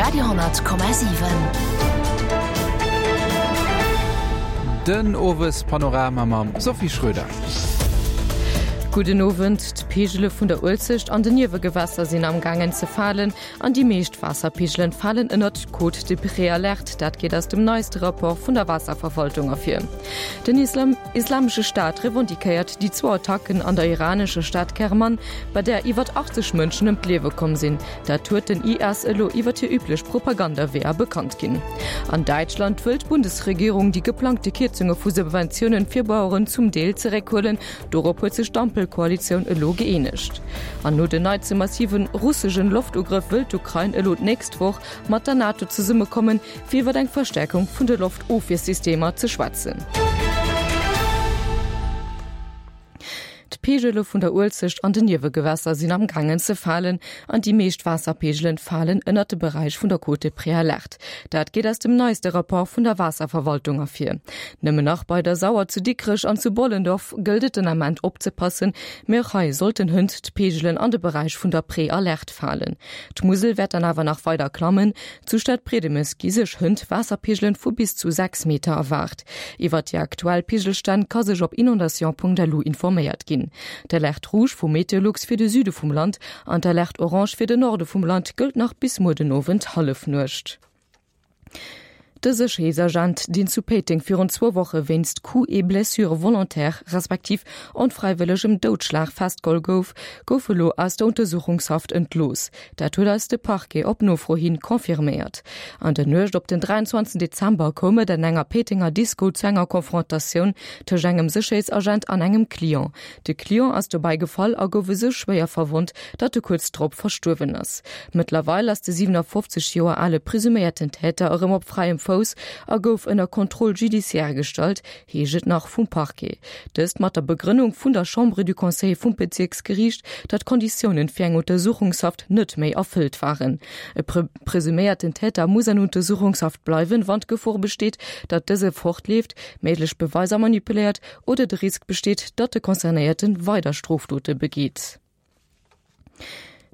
Radio,7. Den Owespanorama mam Sophie Schröder. Gudden Owend. D'Peegele vun der Uelzecht an den Niewegewässer sinn am gaangen ze falen an déi meescht Waasserpeegelen falen ënnert d'Cote de Préalerte. Dat geet aus dem neiste Rapport vun der Waasserverwaltung ervir. Den Islamesche Staat revendiquéiert déi zwou Attacken an der iranescher Stad Kerman, bei där iwwert 80 Mënschen ëm d'Liewe komm sinn. Dat huet den IS elo iwwert hir üblech Propagandaweeër bekannt ginn. An Däitschland wëll d'Bundesregierung déi geplangte Kierzunge vu Subventiounen fir Baueren zum Deel zeréckhuelen. Dorop huet sech d'Ampelkoalitioun elo gëeenegt. An no den neitste massive russegen Loftugrëff wëll d'Ukrain elo d'nächst Woch mat der NATO zesummekommen, fir iwwer eng Verstäerkung vun de Loftofwiersystemer ze schwätzen. D'Peegele vun der Uelzecht an den Niewegewässer sinn am gaangen ze falen an déi meescht Waasserpeegelen falen ënnert de Beräich vun der Cote Préalerte. Dat geet aus dem neiste Rapport vun der Waasserverwaltung ervir. Nëmmen nach bei der Sauer zu Dikrech an zu Bollendorf gëllt et den Ament opzepassen, mee och hei sollten hënt d'Peegelen an de Beräich vun der Préalerte falen. D'Musel wäert dann awer nach weider klammen. Zu Stadbriedemes gi sech hënt Waasserpeegelen vu bis zu 6 Meter erwaart. Iwwert déi aktuell Peegelstänn ka sech op inondation.lu informéiert ginn. D'Alerte rouge vu Meteolux fir de Süde vum Land an d'Alerte orange fir de Norde vum Land gëllt nach bis muer den Owend Hallefnuecht. De Sécherheetsagent, deen zu Péiteng virun zwou Woche wéinst Coups et blessures volontaires respektiv onfräiwëllegem Doudschlag festgeholl gouf, gouf elo aus der Untersuchungshaft entlooss. Dat huet eis de Parquet op Nofro hin confirméiert. An der Nuecht op den 23 Dezember koum et an enger Péitenger Disco zu enger Konfrontatioun tëscht engem Sécherheetsagent an engem Client. De Client ass dobäi gefall a gouf esou schwéier verwonnt, datt e kuerz drop verstuerwen ass. Mëttlerweil ass de 57 Joer ale presuméierten Täter erëm op fräiem Fouss a gouf ënner Contrôle judiciaire gestallt, heescht et nach vum Parquet. Dëst mat der Begrënnung vun der Chambre du Conseil vum Bezierksgeriicht, datt d'Konditiounen fir eng Untersuchungshaft net méi erfëllt waren. E presuméierten Täter muss an Untersuchungshaft bleiwen, wann d'Gefor besteet, datt dëse fortleeft, méiglech Beweiser manipuléiert oder de Risk besteet, datt de Concernéierte weider Strofdote begeet.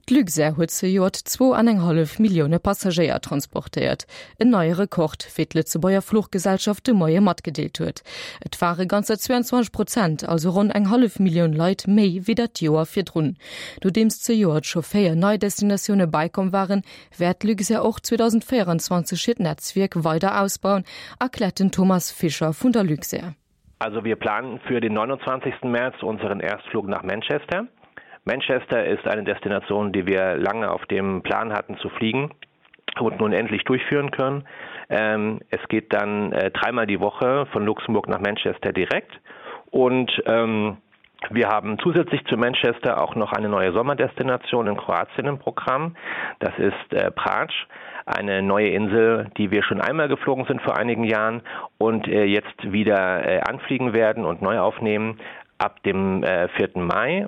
D'Luxair huet zejoert zwou an eng hallef Millioune Passagéier transportéiert, en neie Rekord, wéi d'Lëtzebuerger Fluchgesellschaft de Moie matgedeelt huet. Et ware ganzer 22 Prozent, also ronn eng hallef Millioun Leit méi wéi dat Joer virdrun. Nodeems zejoert scho 4 nei Destinatioune bäikomm waren, wäert d'Luxair och 2024 hiert Netzwierk weider ausbauen, erkläert den Thomas Fischer vun der Luxair. Also wir planen für den 29. März unseren Erstflug nach Manchester. Manchester ist eine Destination, die wir lange auf dem Plan hatten zu fliegen und nun endlich durchführen können. Ähm, es geht dann äh, dreimal die Woche von Luxemburg nach Manchester direkt und ähm, wir haben zusätzlich zu Manchester auch noch eine neue Sommerdestination in Kroatien im Programm. Das ist äh, Pratsch, eine neue Insel, die wir schon einmal geflogen sind vor einigen Jahren und äh, jetzt wieder äh, anfliegen werden und neu aufnehmen ab dem äh, 4. Mai.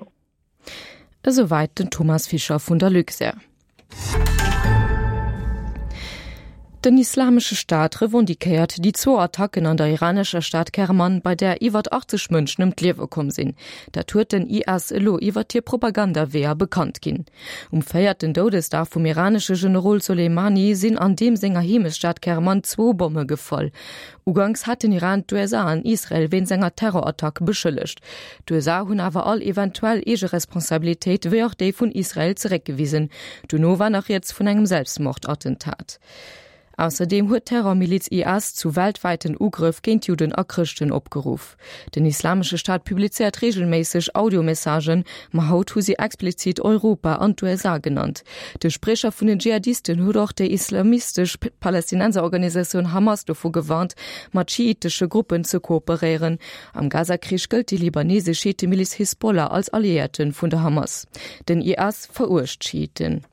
Esouwäit den Thomas Fischer vun der Luxair. Den Islamesche Staat revendiquéiert déi zwou Attacken an der iranescher Stad Kerman, bei där iwwert 80 Mënschen ëm d'Liewe komm sinn. Dat huet den IS elo iwwert hir Propagandaweeër bekannt ginn. Um véierten Doudesdag vum iranesche Generol Soleimani sinn an deem senger Heemechtsstad Kerman zwou Bomme gefall. Uganks hat den Iran d'USA an Israel wéinst enger Terrorattack beschëllegt. D'USA hunn awer all eventuell eege Responsabilitéit, wéi och déi vun Israel zeréckgewisen. Dono war nach rieds vun engem Selbstmordattentat. Ausserdeem huet d'Terrormiliz IS zu weltwäiten Ugrëff géint Judden a Chrëschten opgeruff. Den Islamesche Staat publizéiert reegelméisseg Audiomessagen, ma haut hu si explizit Europa an d'USA genannt. De Spriecher vun den Dschihadisten huet och déi islamistesch Palästinenserorganisatioun Hamas dovu gewarnt, mat schiitesche Gruppen ze kooperéieren. Am Gaza-Krich gëllt déi libanesesch Schiitemiliz Hisbollah als Alliéierte vun der Hamas. Den IS veruecht d'Schiiten.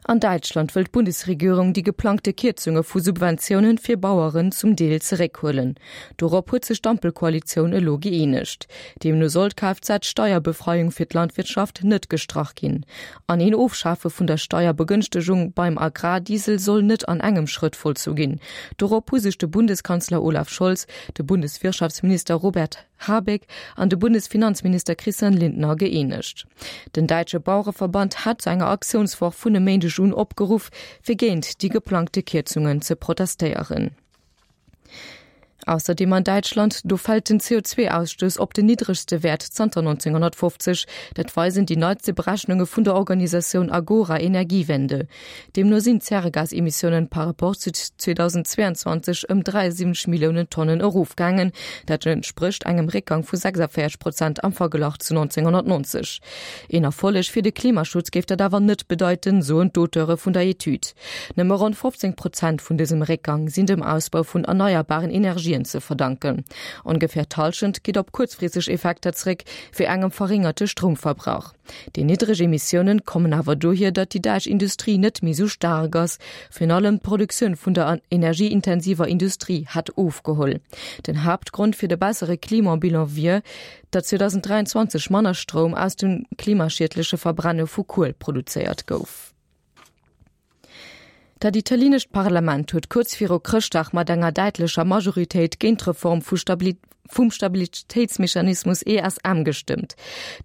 An Däitschland wëll d'Bundesregierung déi geplangte Kierzunge vu Subventiounen fir Baueren zum Deel zeréckhuelen. Dorop huet sech d'Ampelkoalitioun elo gëeenegt. Deemno soll d'Kfz-Steierbefreiung fir d'Landwirtschaft net gestrach ginn. An een Ofschafe vun der Steierbegënschtegung beim Agrardiesel soll net an engem Schrëtt vollzu ginn. Dorop hu sech de Bundeskanzler Olaf Scholz, de Bundeswirtschaftsminister Robert Habeck an de Bundesfinanzminister Christian Lindner gëeenegt. Den däitsche Bauereverband hat zu enger Aktiounswoch vun e Méindeg. Méindeg un opgeruff, fir géint déi geplangte Kierzungen ze protestéieren. Ausserdeem an Däitschland, do fält den CO2-Ausstouss op den niddregste Wäert zanter 1950. Dat weisen déi neitste Berechnunge vun der Organisatioun Agora Energiewende. Deemno sinn d'Zäregasemissiounen par rapport zu 2022 ëm 73 Milliounen Tonnen erofgaangen. Dat entsprécht engem Réckgang vu 46 Prozent am Verglach zu 1990. Een Erfolleg fir de Klimaschutz géif dat awer net bedeiten, soen d'Auteure vun der Etüd. Nëmme ronn 15 Prozent vun dësem Réckgang sinn dem Ausbau vun erneierbaren Energien ze verdanken. Ongeféier d'Hallschent geet op kuerzfristeg Effekter zeréck, wéi engem verréngerte Stroumverbrauch. Déi niddreg Emissiounen kommen awer dohier, datt déi däitsch Industrie net méi sou staark ass. Virun allem d'Produktioun vun der energieintensiver Industrie hätt ofgeholl. Den Haaptgrond fir de bessere Klimabilan wier, datt 2023 manner Stroum aus dem klimaschiedleche Verbrenne vu Kuel produzéiert gouf. Dat italienescht Parlament huet kuerz viru Chrëschtdag mat enger däitlecher Majoritéit géint d'Reform vu vum Stabilitéitsmechanismus ESM gestëmmt.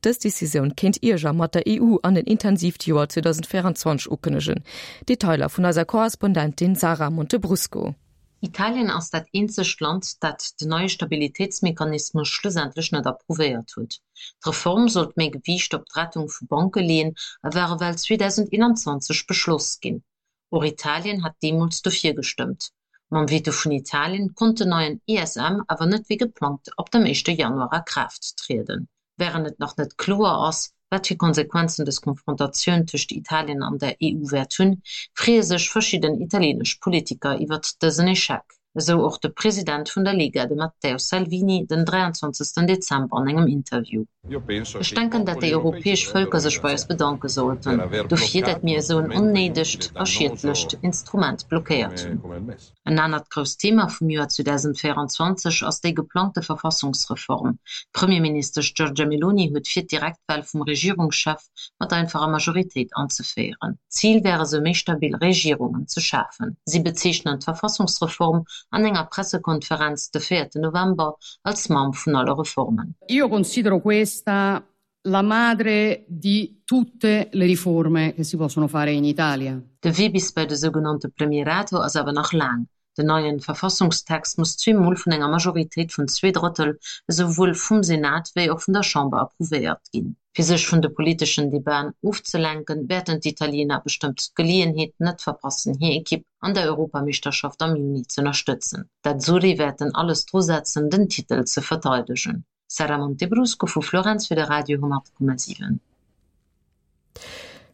Dës Decisioun kéint Ierger mat der EU an en intensiivt Joer 2024 ukënnegen. Detailer vun eiser Korrespondentin Sara Montebrusco. Italien ass dat eenzegt Land, dat den neie Stabilitéitsmechanismus schlussendlech net approuvéiert huet. D'Reform sollt méi Gewiicht op d'Rettung vu Banke leeën a war ewell 2021 beschloss ginn. Och Italien hat deemools dofir gestëmmt. Mam Veto vun Italien konnt den neien ESM awer net wéi geplangt ab dem éischte Januar a Kraaft trieden. Wärend et nach net kloer ass, wat fir Konsequenzen dës Konfrontatioun tëscht Italien an der EU wäert hunn, freeë sech verschidden italienesch Politiker iwwert dësen Echec, esou och de President vun der Lega, de Matteo Salvini, den 23 Dezember an engem Interview. Ech denken, dat déi europäesch Vëlker sech bei eis bedanke sollten, dofir, dat mir esou en onnéidegt a schiedlecht Instrument blockéiert hunn. En anert grousst Thema vum Joer 2024 ass déi geplangte Verfassungsreform. D'Premierministesch Giorgia Meloni huet vir, d'Direktwal vum Regierungschef mat einfacher Majoritéit anzeféieren. Zil wär esou méi stabil Regierungen ze schafen. Si bezeechnen d'Verfassungsreform an enger Pressekonferenz de véierte November als Mamm vun alle Reformen. Io considero questa la madre di tutte le riforme che si possono fare in Italia. De Wee bis bei de sougenannte Premierato ass awer nach laang. Den neien Verfassungstext muss zweemol vun enger Majoritéit vun Zweedrëttel esouwuel vum Senat wéi och vun der Chamber approuvéiert ginn. Fir sech vun de politeschen Debaten ofzelenken, wäerten d'Italiener bestëmmt d'Geleeënheet net verpassen hir Ekipp an der Europameeschterschaft am Juni z'ënnerstëtzen. D'Azzurri wäerten alles drusetzen den Titel ze verteidegen. Sara Montebrusco vu Florenz fir de Radio 10,7.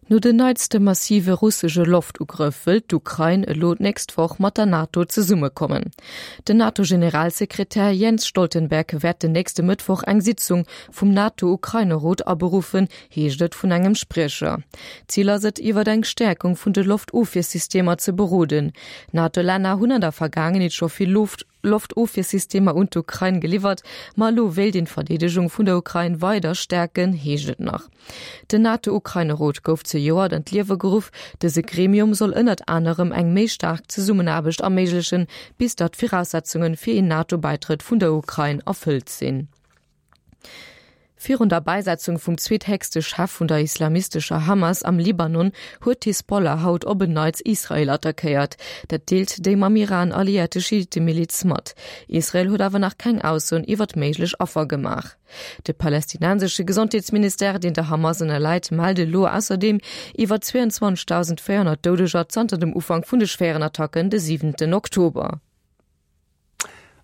No den neitste massive russesche Loftugrëff wëllt d'Ukrain elo d'nächst Woch mat der NATO zesummekommen. Den NATO-Generalsekretär Jens Stoltenberg wäert den nächste Mëttwoch eng Sitzung vum NATO-Ukraine-Rot aberuffen, heescht et vun engem Spriecher. Zil ass et, iwwer eng Stäerkung vun de Loftofwiersystemer ze beroden. D'NATO-Länner hunn an der Vergaangenheet scho vill Loft. Loftofwiersystemer un d'Ukrain geliwwert, ma elo wéilt een d'Verdeedegung vun der Ukrain weider stäerken, heescht et nach. Den NATO-Ukraine-Rot gouf zejoert an d'Liewe geruff. Dëse Gremium soll ënnert anerem eng méi staark Zesummenaarbecht erméiglechen, bis datt d'Viraussetzunge fir een NATO-Bäitrëtt vun der Ukrain erfëllt sinn. Virun der Bäisetzung vum zweethéchste Chef vun der islamistescher Hamas am Libanon huet d'Hisbollah haut op en Neits Israel attackéiert. Dat deelt déi mam Iran alliéierte Schiittemiliz mat. Israel huet awer nach keng Aussoen iwwert méiglech Affer gemaach. De palästinensesche Gesondheetsministère, deen der Hamas ënnerläit, mellt elo ausserdeem iwwer 22.400 Doudeger zanter dem Ufank vun de schwéieren Attacken de siwenten Oktober.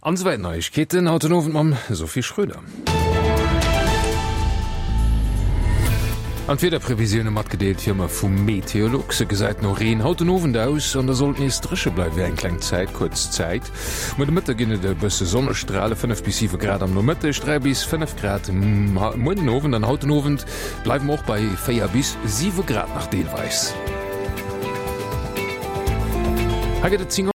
An esouwäit d'Neiegkeeten haut den Owend mam Sophie Schröder. An d'Wiederprevisioune matgedeelt wéi ëmmer vum Meteolux. Et gesäit no Reen haut den Owend aus an da sollt nees dréche bleiwe fir eng kleng Zäit, kuerz Zäit. Muer de Mëtte ginn et e bësse Sonnestrale, 5 bis 7 Grad am Nomëtteg, 3 bis 5 Grad muer den Owend an haut den Owend bleiwe mer och bei 4 bis 7 Grad nach deelweis. Hei gëtt et 10.